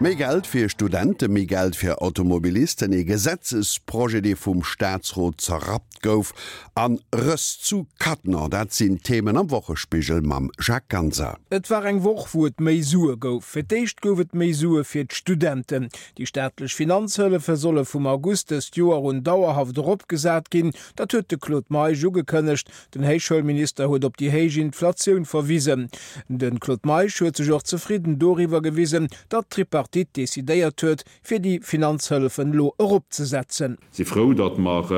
Méi Geld fir Studenten, méi Geld fir Automobilisten, ee Gesetzesprojet, dee vum Staatsrot zerrappt gouf, an Rëss zu Cattenom, dat sinn d'Themen am Wochespigel mam Jacques Ganser. Et war eng Woch, wou et méi Sue gouf. Fir d'éischt gouf et méi Sue fir d'Studenten. Déi staatlech Finanzhëllefe solle vum August dëst Joer un dauerhaft eropgesat ginn. Dat huet de Claude Meisch ugekënnegt. Den Héichschoulminister huet op déi héich Inflatioun verwisen. De Claude Meisch huet sech och zefridden doriwwer gewisen, datt d'Tripartite decidéiert huet, fir déi Finanzhëllefen elo eropzesetzen. Si frou, datt mer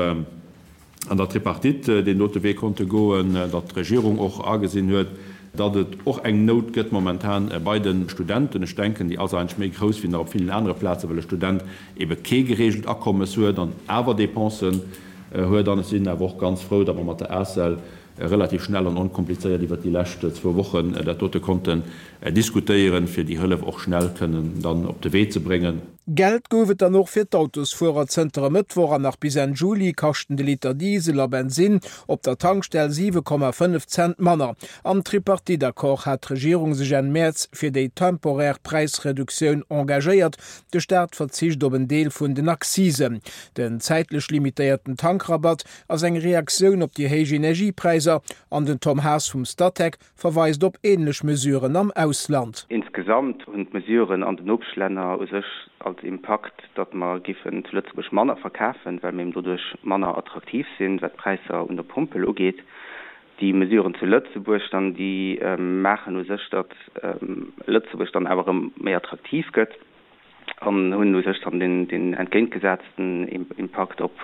an der Tripartite deen dote Wee konnte goen, datt d'Regierung och agesinn huet, datt et och eng Nout gëtt momentan bei de Studenten. Ech denken, déi ass eigentlech méi grouss wéi nach op villen anere Plazen, well e Student ebe kee gereegelt Akommes huet an awer Dépensen huet. An ech sinn awer och ganz frou, datt mer mat der ACEL relativ schnell an onkomplizéiert iwwert déi lescht zwou Wochen dat dote konnten diskutéieren, fir déi Hëllef och schnell kënnen dann op de Wee ze bréngen. Geld gouf et dann och fir d'Autosfuerer. Zënter e Mëttwoch an nach bis Enn Juli kaschten de Liter Diesel a Bensinn op der Tankstell 7,5 Cent manner. Am Tripartite-Accord hat d'Regierung sech Enn Mäerz fir déi temporär Präisreduktioun engagéiert. De Staat verzicht op en Deel vun den Accisen. Den zäitlech limitéierten Tankrabatt ass eng Reaktioun op déi héich Energiepräisser an den Tom Haas vum Statec verweist op änlech Mesuren am Ausland. Insgesamt hunn d'Mesuren an den Nopeschlänner u sech als Impakt, datt mer giffen zu Lëtzebuerg manner verkafen, well mir eben doduerch manner attraktiv sinn, wat d'Präisser un der Pompel ugeet. Déi Mesuren zu Lëtzebuerg dann, déi maachen u sech, datt Lëtzebuerg dann awer erëm méi attraktiv gëtt an hunn u sech dann deen entgéintgesetzten Impakt op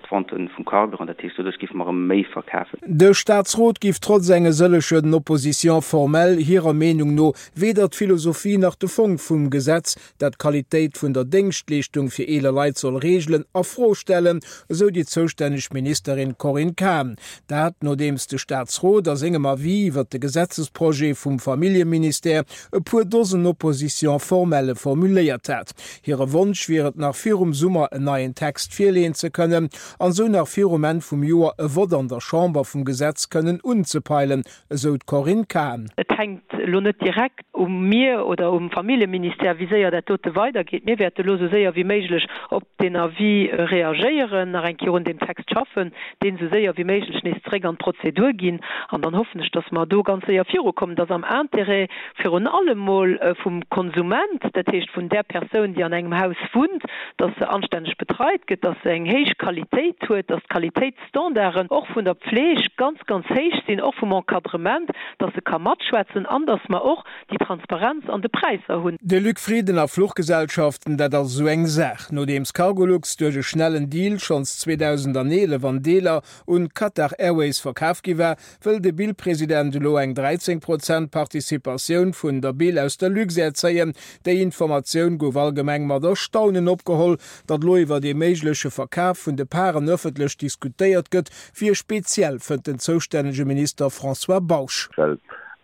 d'Vente vum Carburant. Dat heescht, doduerch géife mer erëm méi verkafen. De Staatsrot giff trotz enge sëllechen Oppositions formelles hirer Meenung no weder d'Philosophie nach de Fong vum Gesetz, dat d'Qualitéit vun der Déngschtleeschtung fir eeler Leit soll reegelen, a Fro stellen, esou déi zoustänneg Ministerin Corinne Cahen. Dat nodeems de Staatsrot a sengem Avis iwwert de Gesetzesprojet vum Familljeministère e puer Dosen Oppositions formelles formuléiert hat. Hire Wonsch wier et nach virum Summer en neien Text virleeën ze kënnen an esou nach virum Enn vum Joer e Vott an der Chamber vum Gesetz kënnen unzepeilen, esou d'Corinne Cahen. Et hänkt elo net direkt u mir oder um Familljeministère, wéi séier dat dote weidergeet. Mir wäerte elo esou séier wéi méiglech op deen Avis reagéieren, nach eng Kéier un deem Text schaffen, deen esou séier wéi méiglech nees zeréck an d'Prozedur ginn. An dann hoffen ech, dass mer do ganz séier virukommen. Et ass am Intérêt virun allem mol vum Konsument, dat heescht vun där Persoun, déi an engem Haus wunnt, dass se anstänneg betreit gëtt, dass se eng héich Qualitéit huet, dass d'Qualitéitsstandarden och vun der Pfleg ganz, ganz héich sinn, och vum Encadrement, dass se ka matschwätzen an dass mer och déi Transparenz an de Präisser hunn. De Luc Frieden a Fluchgesellschaften, dat ass esou eng Saach. Nodeems Cargolux duerch e schnellen Deal schonns 2011 an Deeler un Qatar Airways verkaf gi war, wëll de Bil-President elo eng 13 Prozent Participatioun vun der Bil aus der Luxair zéien. Déi Informatioun gouf allgemeng mat Erstaunen opgeholl. Datt elo iwwert ee méigleche Verkaf vun de Paren ëffentlech diskutéiert gëtt, wier speziell, fënnt den zoustännege Minister François Bausch. Well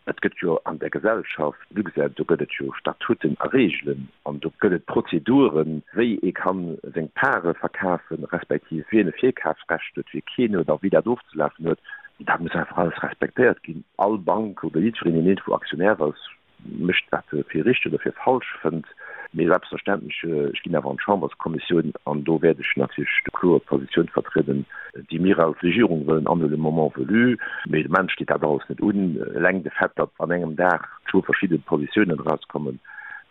et gëtt jo an der Gesellschaft Luxair, do gëtt et jo Statuten a Reegelen an do gëtt et Prozeduren, wéi ee ka seng Pare verkafen, respektiv wien e Virkafsrecht huet, wie keen huet a wéi dat ofzelafen huet. Dat muss einfach alles respektéiert ginn. All Bank oder jiddwereen, deen iergendwou Aktionär ass, mécht wat e fir richteg oder fir falsch fënnt. Mee selbstverständlech, ech ginn awer an d'Chamberskommissioun an do wäert ech natierlech déi kloer Positioun vertrieden, déi mir als Regierung wëllen anhuelen, le moment venu. Mee de Moment steet dat alles net un. Eleng de Fait, datt an engem Dag zwou verschidde Positiounen erauskommen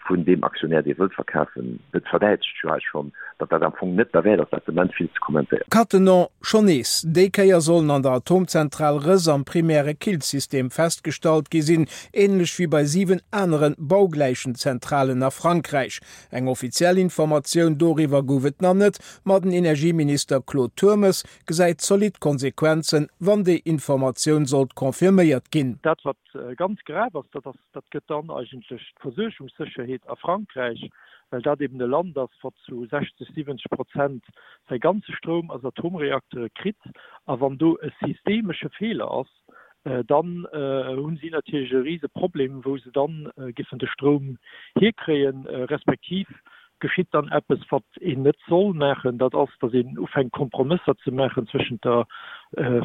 vun deem Aktionär, dee wëllt verkafen, dat verdäitlecht jo eis schonn, datt dat am Fong net derwäert ass, dat de Moment vill ze kommentéieren. Cattenom, Schonn nees déi Kéier sollen an der Atomzentral Rëss am primäre Killsystem festgestallt gi sinn, änlech wéi bei 7 anere baugläichen Zentralen a Frankräich. Eng offiziell Informatioun doriwwer gouf et nach net, ma den Energieminister Claude Turmes gesäit zolidd Konsequenzen, wann déi Informatioun sollt confirméiert ginn. Dat wat ganz grav ass, dat ass, dat gëtt dann eigentlech d'Versuergungssécherheet a Frankräich, well dat eben e Land ass, wat zu 60, 70 Prozent säi ganze Stroum aus Atomreaktere kritt. A wann do e systemesche Feeler ass, dann hu si natierlech e rise Problem, wou se dann giffen de Stroum hierkréien, respektiv. Geschitt dann eppes, wat een net soll maachen, dat ass, datt een ufänkt Kompromësser ze maachen zwëschent der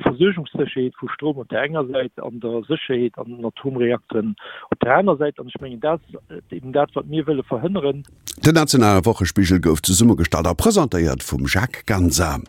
Versuergungssécherheet vu Stroum op där enger Säit an der Sécherheet an den Atomreakteren op där aner Säit. An ech mengen, dat ass eben dat, wat mir wëlle verhënneren. Den nationale Wochespigel gouf zesummegestallt a presentéiert vum Jacques Ganser.